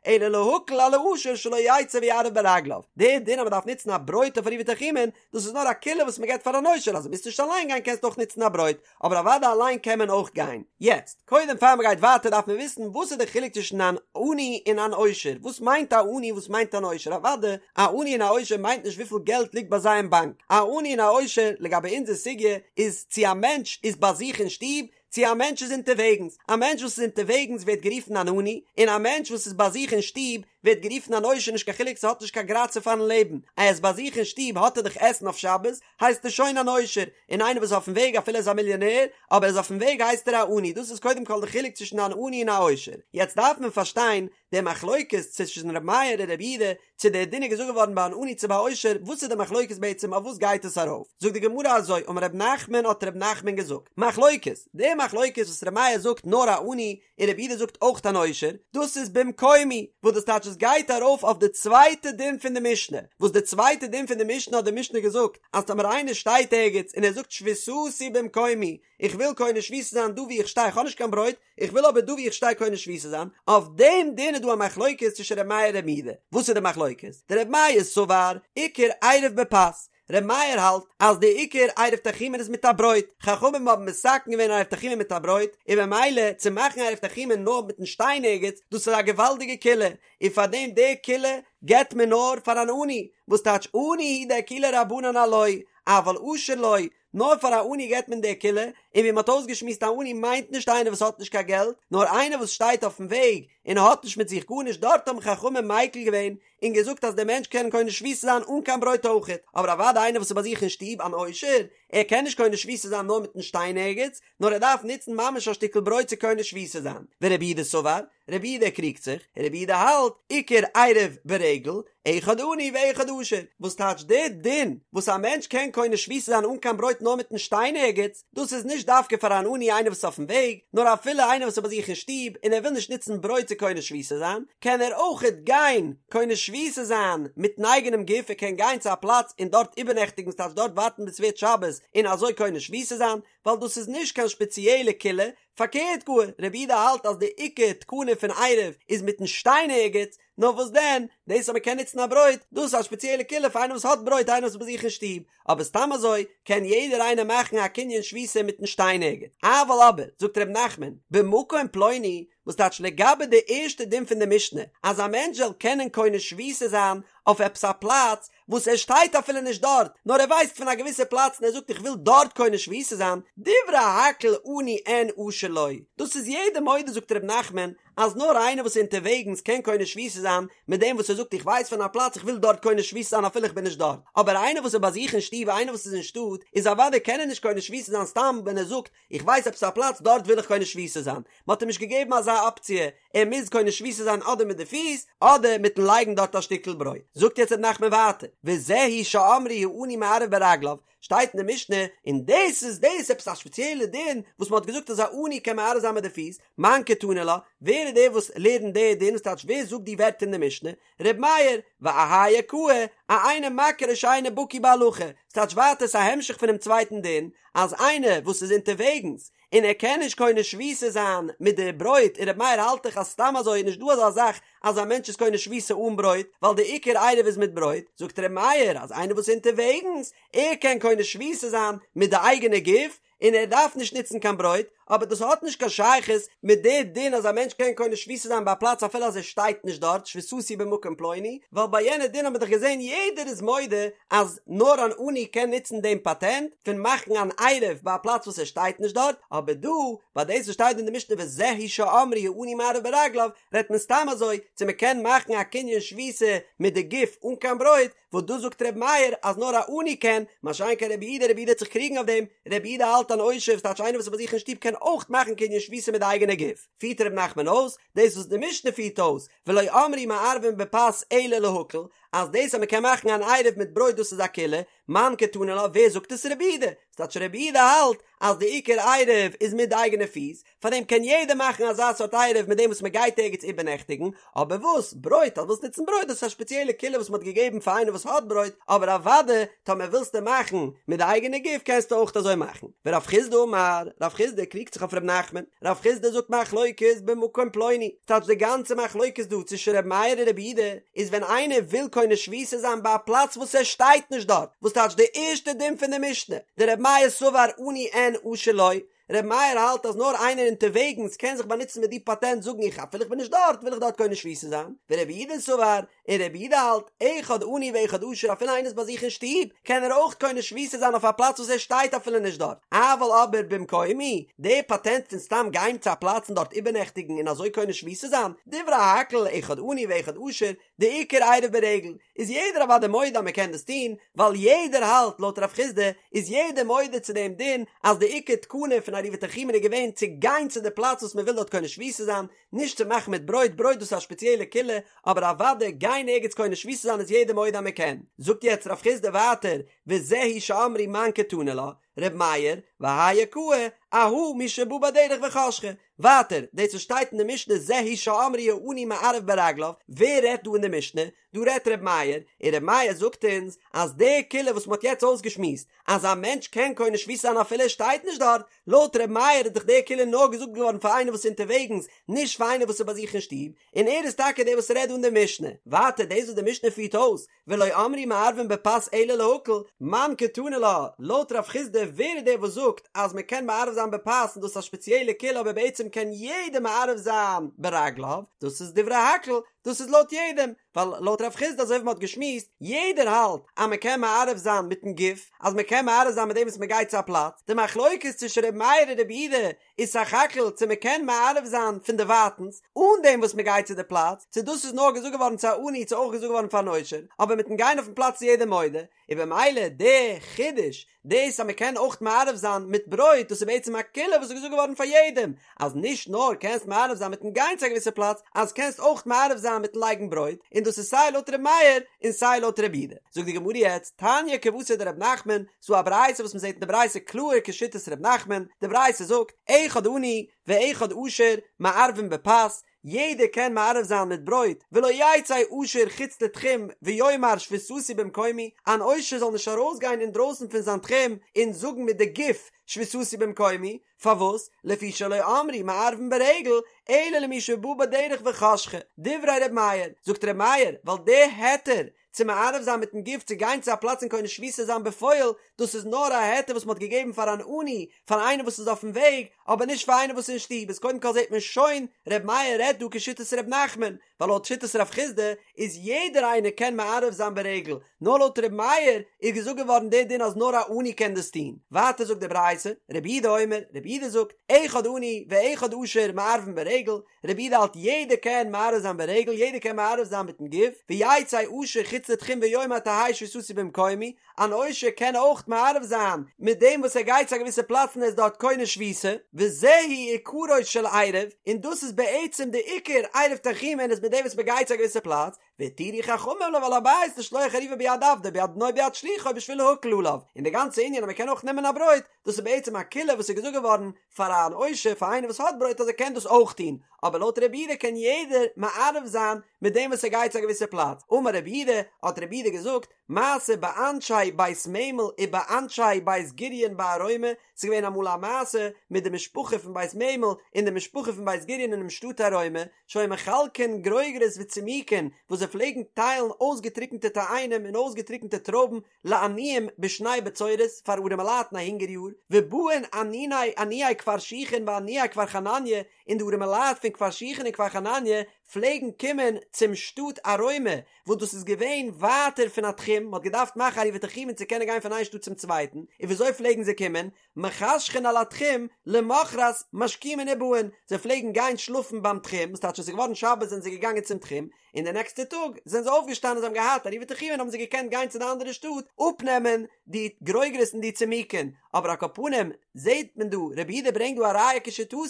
אלא להקל על העשיר שלא יצא ויערב ברגליו, דער דין אז מען דארף נוצן א ברויט אויף עירובי תחומין, דאס איז נאר א קולא וואס מען געבט פאר אן עושר, אז דו מוזט נישט אליין גיין קענסטו אויך נוצן א ברויט, אבער אוודאי אליין קען מען אויך גיין. יעצט, קודם פאר מען גייט ווייטער דארף מען וויסן וואס איז די חילוק צווישן אן עני און אן עושר, וואס מיינט א עני וואס מיינט אן עושר, אוודאי א עני און א עושר מיינט נישט וויפיל געלט ליגט ביי זיי אין באנק, א עני און א עושר לגבי אונזער סוגיא איז צו א מענטש איז ביי זיך אין שטוב צו א מענטש איז אונטערוועגנס, א מענטש וואס איז אונטערוועגנס ווערט גערופן אן עני, און א מענטש וואס איז ביי זיך אין שטוב ווערט גערופן אן עושר נישט קיין חילוק צו האט נישט קיין גראצער פארן לעבן, אז ער איז ביי זיך אין שטוב האט ער דאך עסן אויף שבת, הייסט ער שוין אן עושר, און איינער וואס איז אויפן וועג אפילו ער איז א מיליאנער, אבער ער איז אויפן וועג הייסט ער א עני, דאס איז קודם כל די חילוק צווישן אן עני און א עושר. יעצט דארף מען פארשטיין די מחלוקת צווישן ר' מאיר און ר' יהודה, צו דער דין איז געזאגט געווארן ביי אן עני צו ביי א עושר, וואס איז די מחלוקת בעצם אויף וואס גייט עס ארויף? זאגט די גמרא אזוי, אמר ר' נחמן האט ר' נחמן געזאגט, מחלוקת, די מחלוקת וואס ר' מאיר זאגט נאר א עני, און רבי יהודה זאגט אויך אן עושר, דאס איז במקומי, וואס דאס טייטש עס גייט ארויף אויף די צווייטע דין פון די משנה, וואס די צווייטע דין פון די משנה האט די משנה געזאגט, אז טאמער איינער שטייט ערגעץ און ער זאגט שביתתי במקומי, איך וויל קונה שביתה זיין דא וואו איך שטיי, איך האב נישט קיין ברויט, איך וויל אבער דא וואו איך שטיי קונה שביתה זיין, אויף דעם דין איז דא א מחלוקת צווישן ר' מאיר און ר' יהודה, וואס איז די מחלוקת? דר' מאיר סבר, עיקר עירוב בפת, ר' מאיר האלט אז די עיקר עירוב תחומין איז מיט א ברויט, חכמים האבן מתקן געווען עירוב תחומין מיט א ברויט, און במילא צו מאכן עירוב תחומין נאר מיטן שטיין ערגעץ, דאס איז א געוואלדיגע קולא, און פאר דעם די קולא געבט מען נאר פאר אן עני, וואס טייטש עני הוא דאקילו רבנן עילויה, אבל עשיר לא, נאר פאר א עני געבט מען די קולא, און ווי מען האט אויסגעשמועסט א עני מיינט נישט איינער וואס האט נישט קיין געלט, נאר איינער וואס שטייט אויפן וועג און האט נישט מיט זיך גארנישט, דארט האבן חכמים מיקל געווען און געזאגט אז דער מענטש קען קונה שביתה זיין אן קיין ברויט אויכעט, אבער אוודאי איינער וואס איז ביי זיך אין שטוב אן עושר, ער קען נישט קונה שביתה זיין נאר מיטן שטיין ערגעץ, נאר ער דארף נוצן ממש א שטיקל ברויט צו קונה שביתה זיין. ורבי יהודה סבר, רבי יהודה קריגט זיך, און רבי יהודה האלט, עיקר עירוב ברגל, אחד עני ואחד עשיר, וואס טייטש דער דין וואס א מענטש קען קונה שביתה זיין אן קיין ברויט נאר מיטן שטיין ערגעץ, דאס איז נישט דווקא פאר אן עני איינער וואס איז אויפן וועג, נאר אפילו איינער וואס איז ביי זיך אין שטוב און ער וויל נישט נוצן ברויט צו קונה שביתה זיין, קען ער אויכעט גיין קונה שביתה זיין מיטן אייגענעם גוף, ער קען גיין צו א פלאץ און דארט איבערנעכטיגן ס'טייטש דארט ווארטן ביז ס'ווערט שבת און אזוי קונה שביתה זיין, ווייל דאס איז נישט קיין שפעציעלע קולא, פארקערט גאר, רבי יהודה האלט אז די עיקר תקנה פון עירוב איז מיטן שטיין ערגעץ, נאר וואס דען, דאס אז מ'קען נוצן א ברויט, דאס איז א שפעציעלע קולא פאר איינער וואס האט ברויט איינער וואס איז ביי זיך אין שטוב, אבער סתם אזוי קען יעדער איינער מאכן א קנין שביתה מיטן שטיין ערגעץ. אבל אבער, זאגט ר' נחמן, במקום פלוני, וואס טייטש לגבי די ערשטע דין פון די משנה, אז א מענטש זאל קענען קונה שביתה זיין אויף עפעס א פלאץ. וואס ער שטייט אפילו נישט דארט, נאר ער ווייסט פון א געוויסע פלאץ און ער זאגט איך וויל דארט קונה שביתה זיין, דברי הכל עני אין עשיר לא, דאס איז יעדער מודה זאגט ר' נחמן אז נאר איינער וואס איז אונטערוועגנס קען קונה שביתה זיין מיט דעם וואס ער זאגט איך ווייס פון א פלאץ איך וויל דארט קונה שביתה זיין אפילו איך בין נישט דארט, אבער איינער וואס איז ביי זיך אין שטוב איינער וואס איז אין שטאט איז אוודאי קען ער נישט קונה שביתה זיין סתם ווען ער זאגט איך ווייס עפעס א פלאץ דארט וויל איך קונה שביתה זיין, מען האט אים נישט געגעבן אזא אפציע, ער מוז קונה שביתה זיין אדער מיט די פיס אדער מיטן לייגן דארט א שטיקל ברויט. זאגט יעצט ר' נחמן ווייטער, וזהו שאמרו העני מערב ברגליו, שטייט אין די משנה, און דאס איז דאס עפעס א שפעציעלע דין וואס מען האט געזאגט אז א עני קען מערב זיין מיט די פיס, מאן קתני לה, ווער איז דער וואס לערנט די דין, וואס טייטש ווער זאגט די ווערטער אין די משנה, ר' מאיר, ואהייא קאי, אאינו מכיר או שאינו בקי בהלכה, ס'טייטש ווייטער ס'א המשך פונעם צווייטן דין, אז איינער וואס איז אונטערוועגנס און ער קען נישט קונה שביתה זיין מיט די ברויט און ר' מאיר האלט דאך אז סתם אזוי איז נישט דא אזא זאך אז א מענטש איז קונה שביתה אן ברויט ווייל די עיקר עירוב איז מיט ברויט, זאגט ר' מאיר אז איינער וואס איז אונטערוועגנס ער קען קונה שביתה זיין מיט די אייגענע גוף און ער דארף נישט נוצן קיין ברויט, אבער דאס האט נישט קיין שייכות מיט די דין אז א מענטש קען קונה שביתה זיין ביי א פלאץ אפילו אז ער שטייט נישט דארט, שביתתי במקום פלוני, ווייל ביי יענע דין האט מען דאך געזען יעדער איז מודה אז נאר אן עני קען נוצן דעם פאטענט פון מאכן אן עירוב ביי א פלאץ וואס ער שטייט נישט דארט, אבער דא ביי דאס וואס שטייט אין די משנה וזהו שאמרו העני מערב ברגליו רעדט מען סתם אזוי צו מען קען מאכן א קנין שביתה מיט די גוף אן קיין ברויט, וואס דאס זאגט ר' מאיר אז נאר א עני קען, מה שאין כן רבי יהודה, רבי יהודה וועט זיך קריגן אויף דעם, רבי יהודה האלט אן עושר וואס טייטש איינער וואס איז ביי זיך אין שטוב קען אויך מאכן קנין שביתה מיט די אייגענע גוף, פירט ר' נחמן אויס, דאס וואס די משנה פירט אויס, ולא אמרו מערבין בפת אלא להקל, אז דאס אז מען קען מאכן אן עירוב מיט ברויט דאס איז א קולא, מאן קתני לה, ווער זאגט עס רבי יהודה, ס'טייטש רבי יהודה האלט אז די עיקר עירוב איז מיט די אייגענע פיס, פארדעם קען יעדער מאכן אזא סארט עירוב מיט דעם וואס מען גייט ערגעץ איבערנעכטיגן, אבער וואס, ברויט, אז ווילסט נוצן ברויט דאס איז א שפעציעלע קולא וואס מען האט געגעבן פאר איינער וואס האט ברויט, אבער אוודאי טאמער ווילסטו מאכן מיט די אייגענע גוף קענסטו אויך אזוי מאכן. ורב חסדא אמר, רב חסדא קריגט זיך אויף ר' נחמן, רב חסדא זאגט מחלוקת במקום פלוני, טייטש די גאנצע מחלוקת דא צווישן ר' מאיר און רבי יהודה איז ווען איינער וויל קונה שביתה זיין ביי א פלאץ וואס ער שטייט נישט דארט, וואס טייטש די ערשטע דין פון די משנה, דר' מאיר סבר עני אין עשיר לא, ר' מאיר האלט אז נאר איינער אונטערוועגנס קען זיך באנוצן מיט די פאטענט זאגן איך אפילו איך בין נישט דארט וויל איך דארט קונה שביתה זיין, ורבי יהודה סבר, און רבי יהודה האלט, אחד עני ואחד עשיר אפילו איינער איז ביי זיך אין שטוב קען ער אויך קונה שביתה זיין אויף א פלאץ וואס ער שטייט אפילו נישט דארט, אבל אבער במקומי, די פאטענט פון סתם גיין צו א פלאץ און דארט איבערנעכטיגן און אזוי קונה שביתה זיין, דברי הכל אחד עני ואחד עשיר, דעיקר עירוב ברגל, איז יעדער אוודאי מודה אז מען קען דאס טון, ווייל יעדער האלט לויט רב חסדא איז יעדער מודה צו דעם דין אז די עיקר תקנה פון עירובי תחומין איז געווען צו גיין צו די פלאץ וואס מען וויל דארט קונה שביתה זיין, נישט צו מאכן מיט ברויט, ברויט דאס איז א שפעציעלע קולא, אבער אוודאי גיין ערגעץ קונה שביתה זיין איז יעדער מודה אז מען קען. זאגט יעצט רב חסדא ווייטער, וזהו שאמרו מאן קתני לה, ר' מאיר, ואהייא קאי, אהא מי שבא בדרך וחשכה. ווייטער, דאס וואס שטייט אין די משנה זהו שאמרו העני מערב ברגליו, ווער רעדט דא אין די משנה? דא רעדט ר' מאיר, און ר' מאיר זאגט אונז אז די קולא וואס מ'האט יעצט אויסגעשמועסט, אז א מענטש קען קונה שביתה זיין אפילו ער שטייט נישט דארט, לויט ר' מאיר איז דאך די קולא נאר געזאגט געווארן פאר איינער וואס איז אונטערוועגנס, נישט פאר איינער וואס איז ביי זיך אין שטוב, און ער איז טאקע דער וואס רעדט דא אין די משנה. ווייטער, דאס וואס די משנה פירט אויס, ולא אמרו מערבין בפת אלא להקל, מאן קתני לה, לויט רב חסדא ווער איז דער וואס זאגט אז מען קען מערב זיין בפת און דאס איז א שפעציעלע קולא אבער בעצם קען יעדער מערב זיין ברגליו, דאס איז דברי הכל, דאס איז לויט יעדעם, ווייל לויט רב חסדא אזוי ווי מען האט געשמועסט, יעדער האלט אז מען קען מערב זיין מיטן גוף, אז מען קען מערב זיין מיט דעם וואס מען גייט צו א פלאץ, די מחלוקת צווישן רבי מאיר און רבי יהודה איז סך הכל צו מען קען מערב זיין פון דערווייטענס אן דעם וואס מען גייט צו די פלאץ, צו דאס איז נאר געזאגט געווארן צו א עני צו אויך געזאגט געווארן פארן עושר, אבער מיטן גיין אויפן פלאץ איז יעדער מודה, און במילא די חידוש דאס אז מען קען אויך מערב זיין מיט ברויט דאס איז בעצם א קולא וואס איז געזאגט געווארן פאר יעדעם, אז נישט נאר קענסט מערב זיין מיטן גיין צו א געוויסע פלאץ, אז קענסט אויך מערב זיין מיטן לייגן ברויט, און דאס איז סיי לויט ר' מאיר און סיי לויט ר' יהודה. זאגט די גמרא יעצט, תניא כוותיה דר' נחמן, ס'דא א ברייתא וואס מ'זעט אין די ברייתא קלאהר כשיטת ר' נחמן, די ברייתא זאגט, אחד עני ואחד עשיר מערבין בפת, יעדער קען מערב זיין מיט ברויט, ולא יצא עשיר חוץ לתחום ויאמר שביתתי במקומי, אן עושר זאל נישט ארויסגיין אינדרויסן פון זיין תחום און זאגן מיט די גוף שביתתי במקומי, פארוואס? לפי שלא אמרו מערבין ברגל אלא למי שבא בדרך וחשכה, דברי ר' מאיר, זאגט ר' מאיר, ווייל די היתר. צו מערב זיין מיטן גוף צו גיין צו א פלאץ און קונה שביתה זיין בפועל, דאס איז נאר א היתר וואס מען האט געגעבן פאר אן עני, פאר איינער וואס איז אויפן וועג, אבער נישט פאר איינער וואס איז אין שטוב, איז קודם כל זעט מען שוין ר' מאיר רעדט דא כשיטת ר' נחמן, ווייל לויט שיטת רב חסדא איז יעדער איינער קען מערב זיין ברגל, נאר לויט ר' מאיר איז געזאגט געווארן די דין אז נאר א עני קען דאס טון. ווייטער זאגט די ברייתא, רבי יהודה אומר, רבי יהודה זאגט, אחד עני ואחד עשיר מערבין ברגל, רבי יהודה האלט יעדער קען מערב זיין ברגל, יעדער קען מערב זיין מיטן גוף, ויצא עשיר חוץ לתחום ויאמר תהא שביתתי במקומי, אן עושר קען אויך מערב זיין מיט דעם וואס ער גייט צו א געוויסע פלאץ און ער איז דארט קונה שביתה, וזהו עיקרו של עירוב, און דאס איז בעצם די עיקר עירוב תחומין איז מיט דעם וואס מען גייט צו א געוויסע פלאץ, והתירו חכמים לבעל הבית לשלוח עירובו ביד עבדו ביד בנו ביד שלוחו בשביל להקל עליו, און די גאנצע ענין אז מען קען אויך נעמען א ברויט, דאס איז בעצם א קולא וואס איז געזאגט געווארן פאר אן עושר פאר איינער וואס האט ברויט אז ער קען דאס אויך טון, אבער לויט רבי יהודה קען יעדער מערב זיין מיט דעם וואס ער גייט צו א געוויסע פלאץ, אמר רבי יהודה, האט רבי יהודה געזאגט, מעשה באנשי בית ממל ובאנשי בית גוריון בארומא, ס'איז געווען אמאל א מעשה מיט די משפחה פון בית ממל און די משפחה פון בית גוריון אינעם שטאט ארומא, שהיו מחלקין גרוגרות וצמוקין, וואס זיי פלעגן טיילן אויסגעטריקנטע תאנים און אויסגעטריקנטע טרויבן לעניים בשני בצורת, פאר ארעמעלייט אין א הונגער יאר, ובאין עניני עניי כפר שיחין ועניי כפר חנניה, און די ארעמעלייט פון כפר שיחין און כפר חנניה פלעגן קומען צום שטאט ארומא, וואס דאס איז געווען ווייטער פון א תחום, מען האט געדארפט מאכן עירובי תחומין צו קענען גיין פון איין שטאט צום צווייטן, און וויאזוי פלעגן זיי קומען? מחשכין על התחום, למחרת משכימין ובאין, זיי פלעגן גיין שלאפן ביים תחום, וואס טייטש ווען ס'איז געווארן שבת זענען זיי געגאנגען צום תחום, און די נעקסטע טאג זענען זיי אויפגעשטאנען זיי האבן געהאט עירובי תחומין האבן זיי געקענט גיין צו די אנדערע שטאט אפנעמען די גרוגרות און די צימוקין, אבער על כל פנים זעהט מען דא רבי יהודה ברענגט דא א ראיה כשיטתו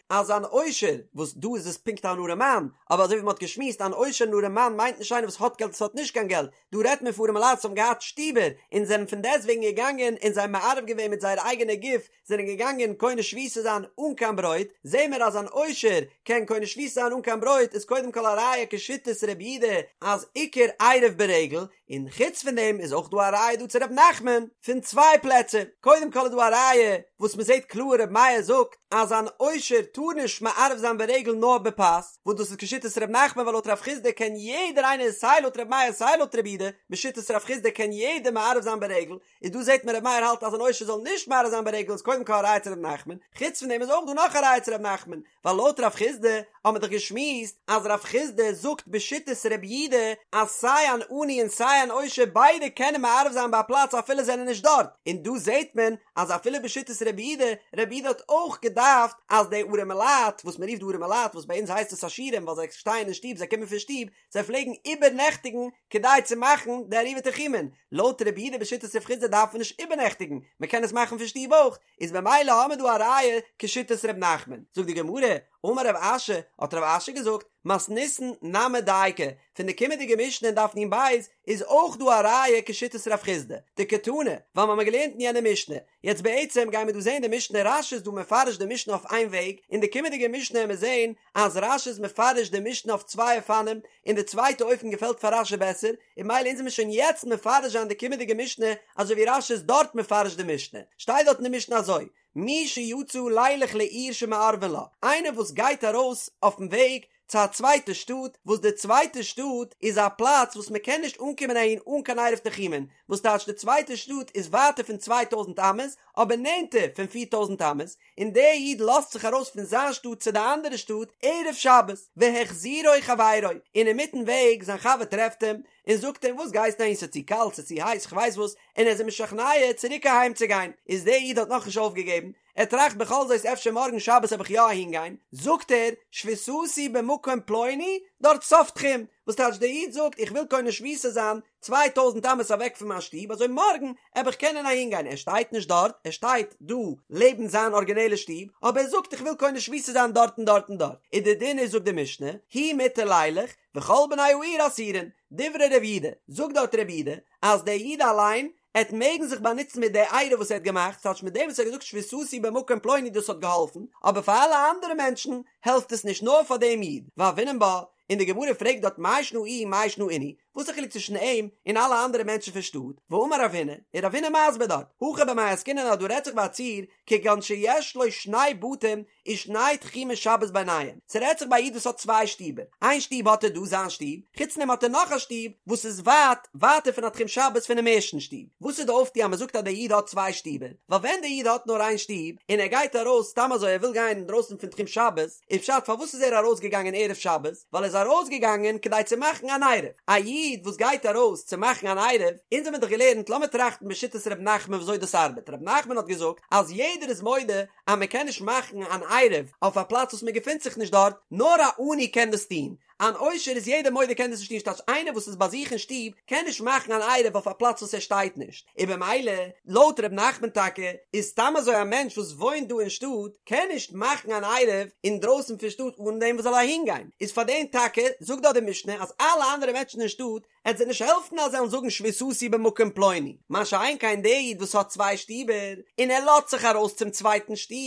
אז אן עושר, וואס דא איז עס פונקט אן ארעמאן, אבער אזוי ווי מען האט געשמועסט אן עושר און ארעמאן מיינט נישט איינער וואס האט געלט וואס האט נישט קיין געלט, דא רעדט מען פון ארעמעלייט וואס האבן געהאט שטיבער און זענען פון דעסטוועגן געגאנגען און זיי מערב געווען מיט זייער אייגענע גוף, זענען געגאנגען קונה שביתה זיין אן קיין ברויט, זעהן מיר אז אן עושר קען קונה שביתה זיין אן קיין ברויט איז קודם כל א ראיה כשיטת רבי יהודה אז עיקר עירוב ברגל, און חוץ פון דעם איז אויך דא א ראיה דא צו ר' נחמן פון צוויי פלעצער, קודם כל איז דא א ראיה וואס מען זעט קלאר ר' מאיר זאגט אז אן עושר טאר נישט מערב זיין ברגל נאר בפת, וואס דאס איז כשיטת ר' נחמן ווייל לויט רב חסדא קען יעדער איינער סיי לויט ר' מאיר סיי לויט רבי יהודה, בשיטת רב חסדא קען יעדער מערב זיין ברגל, איז דא זעט מען ר' מאיר האלט אז אן עושר זאל נישט מערב זיין ברגל איז קודם כל א ראיה צו ר' נחמן, חוץ פון דעם איז אויך דא נאך א ראיה צו ר' נחמן, ווייל לויט רב חסדא האט מען דאך געשמועסט אז רב חסדא זאגט בשיטת רבי יהודה אז סיי אן עני און סיי אן עושר ביידע קענען מערב זיין ביי א פלאץ אפילו זענען נישט דארט, און דא זעט מען אז אפילו בשיטת רבי יהודה, רבי יהודה האט אויך געדארפט אז די ארעמעלייט וואס מען רופט די ארעמעלייט וואס ביי אונז הייסט עס עשירים ווייל זיי שטייען אין שטוב זיי קומען פון שטוב, זיי פלעגן איבערנעכטיגן כדי צו מאכן די עירובי תחומין, לויט רבי יהודה בשיטת רב חסדא דארף מען נישט איבערנעכטיגן, מען קען עס מאכן פון שטוב אויך, איז במילא האמיר דא א ראיה כשיטת ר' נחמן. זאגט די גמרא, אמר רב אשי, האט רב אשי געזאגט, מתניתין נמי דייקא, פון די קומענדיגע משנה אין דף נ"ב איז אויך דא א ראיה כשיטת רב חסדא, דקתני, ווייל מ'האמיר געלערנט אין יענע משנה, יעצט בעצם גייען מיר דא זעהן די משנה, רש"י איז דא מפרש די משנה אויף איין וועג, אין די קומענדיגע משנה וועמיר זעהן אז רש"י איז מפרש די משנה אויף צוויי אופנים, און די צווייטע אופן געפעלט פאר רש"י בעסער, און ממילא אונז וועמיר שוין יעצט מפרש זיין די קומענדיגע משנה אזוי ווי רש"י איז דארט מפרש די משנה, שטייט דארט אין די משנה אזוי, מי שיצא לילך לעיר שמערבין לה, איינער וואס גייט ארויס אויפן וועג צו א צווייטע שטאט, וואס די צווייטע שטאט איז א פלאץ וואס מען קען נישט אנקומען אהין אן קיין עירוב תחומין, וואס טייטש די צווייטע שטאט איז ווייטער פון צוויי טויזנט אמות אבער נענטער פון פיר טויזנט אמות, און דער איד לאזט זיך ארויס פון זיין שטאט צו די אנדערע שטאט ערב שבת, והחזירו חברו, און אינמיטן וועג זיין חבר טרעפט אים, און זאגט אים וואס גייסטו אהין ס'איז צו קאלט ס'איז צו הייס כ'ווייס וואס, און ער איז אים משכנע צוריק אהיים צו גיין, איז דער איד האט נאכנישט אויפגעגעבן, ער טראכט בכל זאת אפשר מארגן שבת וועל איך יא אהין גיין, זאגט ער, שביתתי במקום פלוני, דארט סוף תחום, וואס טייטש דער איד זאגט איך וויל קונה שביתה זיין צוויי טויזנט אמות אוועק פון מיין שטוב אזוי מארגן עב איך קענען אהין גיין, ער שטייט נישט דארט, ער שטייט דא לעבן זיין ארגינעלע שטוב, אבער ער זאגט איך וויל קונה שביתה זיין דארט און דארט און דארט, און די דין איז זאגט די משנה, הוא מותר לילך, וכל בני העיר אסורין, דברי ר' יהודה, זאגט דארט ר' יהודה, אז דער איד אליין עט מעגן זיך באנוצן מיט די עירוב וואס ער האט געמאכט, ס'טייטש מיט דעם וואס ער האט געזאגט שביתתי במקום פלוני דאס האט געהאלפן, אבער פאר אלע אנדערע מענטשן העלפט עס נישט נאר פאר דעם איד, והוינן בה, און די גמרא פרעגט דארט מאי שנא איהו מאי שנא אינהו, וואס איז די חילוק צווישן אים און אלע אנדערע מענטשן פון שטאט? ואמר רב הונא, און רב הונא מסביר דארט, הכא במאי עסקינן אז דא רעדט זיך ביי א ציור, כגון שיש לו שני בתים ושני תחומי שבת ביניהם, ס'רעדט זיך ביי א איד וואס האט צוויי שטיבער, איין שטוב האט ער דא זיין שטוב, חוץ דעם האט ער נאך א שטוב וואס איז ווייט ווייטער פון א תחום שבת פונעם ערשטן שטוב, וואס איז די אויפטו אז מ'זאגט אז דער איד האט צוויי שטיבער? ווייל ווען דער איד האט נאר איין שטוב און ער גייט ארויס סתם אזוי ער וויל גיין אינדרויסן פון תחום שבת, איז פשט פארוואס איז ער ארויסגעגאנגען ערב שבת? ווייל ער איז ארויסגעגאנגען כדי צו מאכן אן עירוב. א איד וואס גייט ארויס צו מאכן אן עירוב, אונז האמיר דאך געלערנט, לאמיר טראכטן בשיטת ר' נחמן וויאזוי דאס ארבעט, ר' נחמן האט געזאגט אז יעדער איז מודה אז מען קען נישט מאכן אן עירוב אויף א פלאץ וואס מען געפינט זיך נישט דארט, נאר א עני קען דאס טון, אן עושר איז יעדער מודה קען דאס נישט טון, ס'טייטש איינער וואס איז ביי זיך אין שטוב קען נישט מאכן אן עירוב אויף א פלאץ וואס ער שטייט נישט, און במילא לויט ר' נחמן טאקע איז סתם אזוי א מענטש וואס וואוינט דא אין שטאט קען נישט מאכן אן עירוב אינדרויסן פון שטאט אן דעם וואס זאל אהינגיין, איז פארדעם טאקע זאגט דארט די משנה אז אלע אנדערע מענטשן אין שטאט עט זיי נישט העלפן אז זיי זאלן זאגן שביתתי במקום פלוני, מה שאין כן דער איד וואס האט צוויי שטיבער און ער לאזט זיך ארויס צום צווייטן שטוב,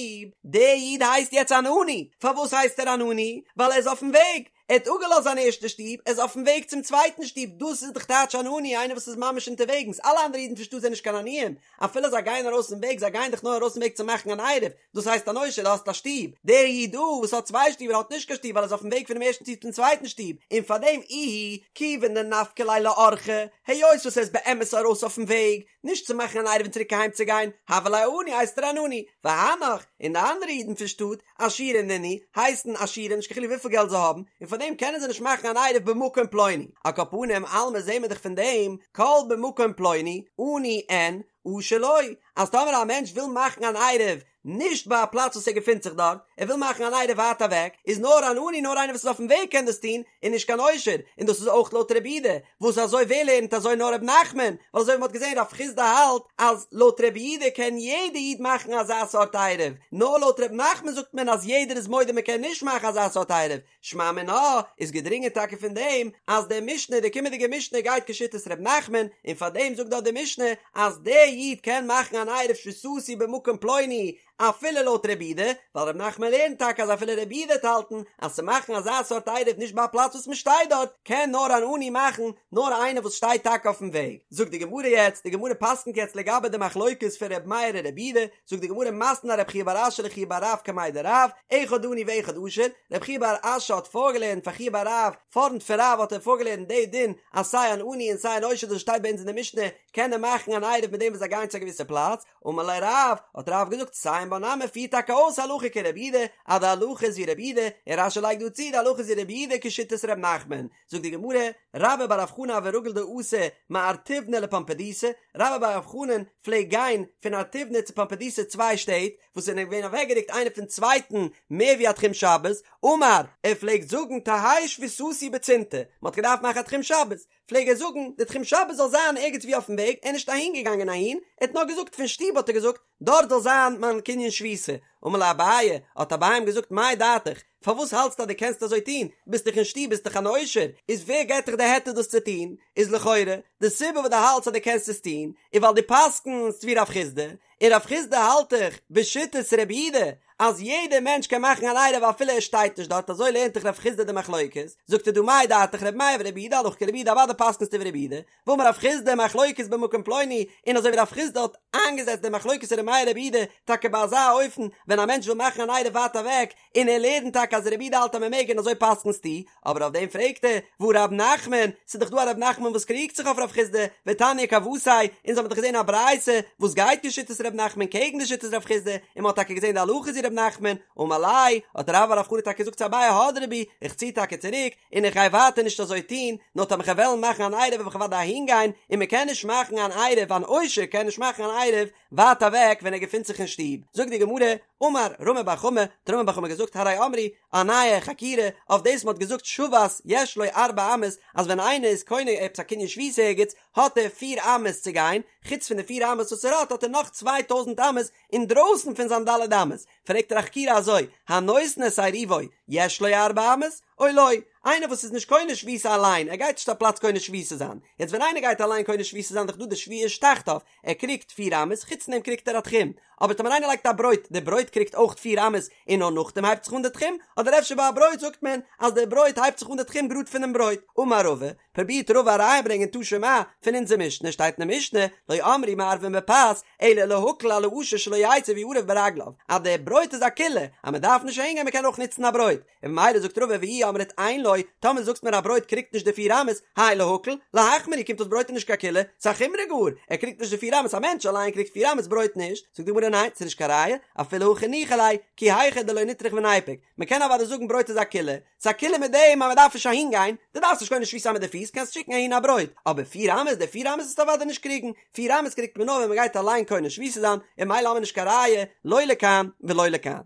דער איד הייסט יעצט אן עני, פארוואס הייסט ער אן עני? ווייל ער איז אויפן וועג, ער האט אפגעלאזט זיין ערשטע שטוב, ער איז אויפן וועג צום צווייטן שטוב, דאס איז דאך טייטש אן עני, איינער וואס איז ממש אונטערוועגנס, אלע אנדערע אידן פון שטאט זענען נישט קיין עניים, אפילו זיי גייען ארויס אין וועג, זיי גייען דאך נאר ארויס אין וועג צו מאכן אן עירוב, דאס הייסט אן עושר, דו האסט א שטוב, דער איד דא וואס האט צוויי שטיבער האט נישט קיין שטוב ווייל ער איז אויפן וועג פונעם ערשטן שטוב צום צווייטן שטוב, און פארדעם איהו כיוון דנפקא ליה לאורחא, היות וואס ער איז באמת ארויס אויפן וועג, נישט צו מאכן אן עירוב און צוריק אהיים צו גיין, הוה ליה עני הייסט ער אן עני, והנך, און די אנדערע אידן פון שטאט, עשירים נינהו, הייסן עשירים נישט קיין חילוק וויפיל געלט זיי האבן, און פארדעם קענען זיי נישט מאכן אן עירוב במקום פלוני, על כל פנים אלמא זעהן מיר דאך פון דעם, כל במקום פלוני, עני אין, עשיר לא, אז טאמער א מענטש וויל מאכן אן עירוב נישט ביי א פלאץ וואס ער געפינט זיך דארט, ער וויל מאכן אן עירוב ווייט אוועק, איז נאר אן עני נאר איינער וואס איז אויפן וועג קען דאס טון, און נישט קיין עושר, און דאס איז אויך לויט רבי יהודה, וואס אזוי ווער לערנט אזוי נאר רב נחמן, ווייל אזוי ווי מ'האט געזען רב חסדא האלט אז לויט רבי יהודה קען יעדע איד מאכן אזא סארט עירוב, נאר לויט רב נחמן זאגט מען אז יעדער איז מודה מ'קען נישט מאכן אזא סארט עירוב, שמע מינה איז געדרינגען טאקע פון דעם אז די משנה די קומענדיגע משנה גייט כשיטת ר' נחמן און פאר דעם זאגט דארט די משנה אז דער איד קען מאכן אן עירוב שביתתי במקום פלוני אפילו לויט רבי יהודה ווייל ר' נחמן לערנט טאקע אז אפילו רבי יהודה וועט האלטן אז צו מאכן אזא סארט עירוב נישט ביי א פלאץ וואס מען שטייט דארט קען נאר אן עני מאכן נאר איינער וואס שטייט טאקע אויפן וועג זאגט די גמרא יעצט די גמרא פסקנט יעצט לגבי די מחלוקת פון ר' מאיר און רבי יהודה זאגט די גמרא מתני רב חייא בר אשי לחייא בר רב קמיה דרב, אחד עני ואחד עשיר, רב חייא בר אשי האט פארגעלערנט פאר חייא בר רב, פארנט פון רב האט ער פארגעלערנט די דין אז סיי אן עני און סיי אן עושר דאס שטייט ביי אונז אין די משנה קענען מאכן אן עירוב מיט דעם וואס זיי גייען צו א געוויסע פלאץ, אמר ליה רב, האט רב געזאגט סיים בה נמי פיר טאקע אויס הלכה כרבי יהודה, אז די הלכה איז ווי רבי יהודה, און רש"י לייגט דא צו די הלכה איז ווי רבי יהודה כשיטת ר' נחמן, זאגט די גמרא, רבה בר רב חנן הוה רגיל דאתי מארטיבנא לפומבדיתא, רבה בר רב חנן פלעגט גיין פון ארטיבנא צו פומבדיתא צוויי שטעט וואס זענען געווען אוועקגערוקט איינער פון צווייטן מער ווי א תחום שבת, אמר, ער פלעגט זאגן תהא שביתתי בצינתא, מען האט געדארפט מאכן א תחום שבת, פלעג ער זאגן די תחום שבת זאל זיין ערגעץ ווי אויפן וועג, ער איז נישט אהין געגאנגען אהין, ער האט נאר געזאגט פון שטוב האט ער געזאגט דארט זאל זיין מיין קנין שביתה, אמר ליה אביי, האט אביי אים געזאגט מאי דעתיך, פארוואס האלטסטו אז דו קענסט אזוי טון, ביסט דאך אין שטוב ביסט דאך אן עושר, איז ווער געט דיך די היתר דאס צו טון, איז לכאורה די סיבה וואס דו האלטסט אז דו קענסט עס טון, איז ווייל דו פסק'נסט ווי רב חסדא, און רב חסדא האלט דאך בשיטת רבי יהודה אז יעדער מענטש קען מאכן אן עירוב אפילו ער שטייט נישט דארט, אזוי לערנט דאך רב חסדא די מחלוקת, זאגט ער דא מאי דעתיך רבי מאיר ורבי יהודה הלכה כרבי יהודה אוודאי פסק'נסטו ווי רבי יהודה, והאמר רב חסדא מחלוקת במקום פלוני, און אזוי ווי רב חסדא האט איינגעזעצט די מחלוקת ר' מאיר רבי יהודה טאקע ביי אזא אופן ווען א מענטש וויל מאכן אן עירוב ווייט אוועק, און ער לערנט טאקע אז רבי יהודה האלט אז מען מעג און אזוי פסק'נסטו, אבער אויף דעם פרעגט ער, והא רב נחמן, ס'איז דאך דא א רב נחמן וואס קריגט זיך אויף רב חסדא, ותניא כוותיה, אונז האבן דאך געזען א ברייתא וואס גייט כשיטת רב נחמן קעגן די שיטת רב חסדא, און מ'האט טאקע געזען די הלכה איז ווי רב נחמן, אמר ליה, האט רבה בר רב חנן טאקע געזאגט צו אביי הדרי בי, איך צי טאקע צוריק, און איך גיי ווייטער נישט אזוי טון, נאר טאמער כ'וועל וועלן מאכן אן עירוב וועל איך אוודאי אהין גיין, און מ'קען נישט מאכן אן עירוב, אן עושר קען נישט מאכן אן עירוב ווייט אוועק ווען ער געפינט זיך אין שטוב. זאגט די גמרא, אמר רמי בר חמא, האט רמי בר חמא געזאגט, הרי אמרו, א נייע חקירה, אויף דאס מ'האט געזאגט שבת יש לו ארבע אמות, אז ווען איינער איז קונה עפעס א קנין שביתה ערגעץ, האט ער פיר אמות צו גיין, חוץ פון די פיר אמות וואס ער האט, האט ער נאך צוויי טויזנט אמות אינדרויסן פון זיין ד' אמות, פרעגט ער א חקירה אזוי, הנותן את עירובו יש לו ארבע אמות, או לא, איינער וואס איז נישט קונה שביתה אליין, ער גייט נישט א פלאץ קונה שביתה זיין, יעצט ווען איינער גייט אליין קונה שביתה זיין איז דאך דא די שביעי שתחתיו, ער קריגט פיר אמות, חוץ פון דעם קריגט ער א תחום, אבער טאמער איינער לייגט א ברויט, די ברויט קריגט אויך פיר אמות און נאר נאכדעם הייבט זיך אן די תחום, אדער אפשר ביי א ברויט זאגט מען אז די ברויט הייבט זיך אן די תחום גראד פונעם ברויט, אמר רבא, פרובירט רבא א ראיה ברענגען תא שמע פון אונזער משנה, שטייט אין די משנה, לא אמרו מערבין בפת, אלא להקל על העשיר שלא יצא ויערב ברגליו, אז די ברויט איז א קולא, אז מען דארף נישט אהינגיין מען קען אויך נוצן א ברויט, און ממילא זאגט רבא ואי אמרת אין לו, טאמער זאגסט מיר א ברויט קריגט נישט די פיר אמות, האי להקל, להחמיר הוא קומט אויס ברויט איז נישט קיין קולא, ס'איז א חומרא גאר, ער קריגט נישט די פיר אמות, א מענטש אליין קריגט פיר אמות ברויט נישט, זאגט די גמרא ניין ס'איז נישט קיין ראיה, אפילו הכי ניחא ליה, כי היכי דלא נטרח וניפוק, מ'קען אוודאי זאגן ברויט איז א קולא, ס'איז א קולא מיט דעם אז מ'דארף נישט אהין גיין, דו דארפסט נישט קונה שביתה זיין מיט די פיס, קענסט שיקן אהין א ברויט, אבער פיר אמות, די פיר אמות וועסטו אוודאי נישט קריגן, פיר אמות קריגט מען נאר ווען מ'גייט אליין קונה שביתה זיין, און ממילא האמיר נישט קיין ראיה, לא לכאן ולא לכאן.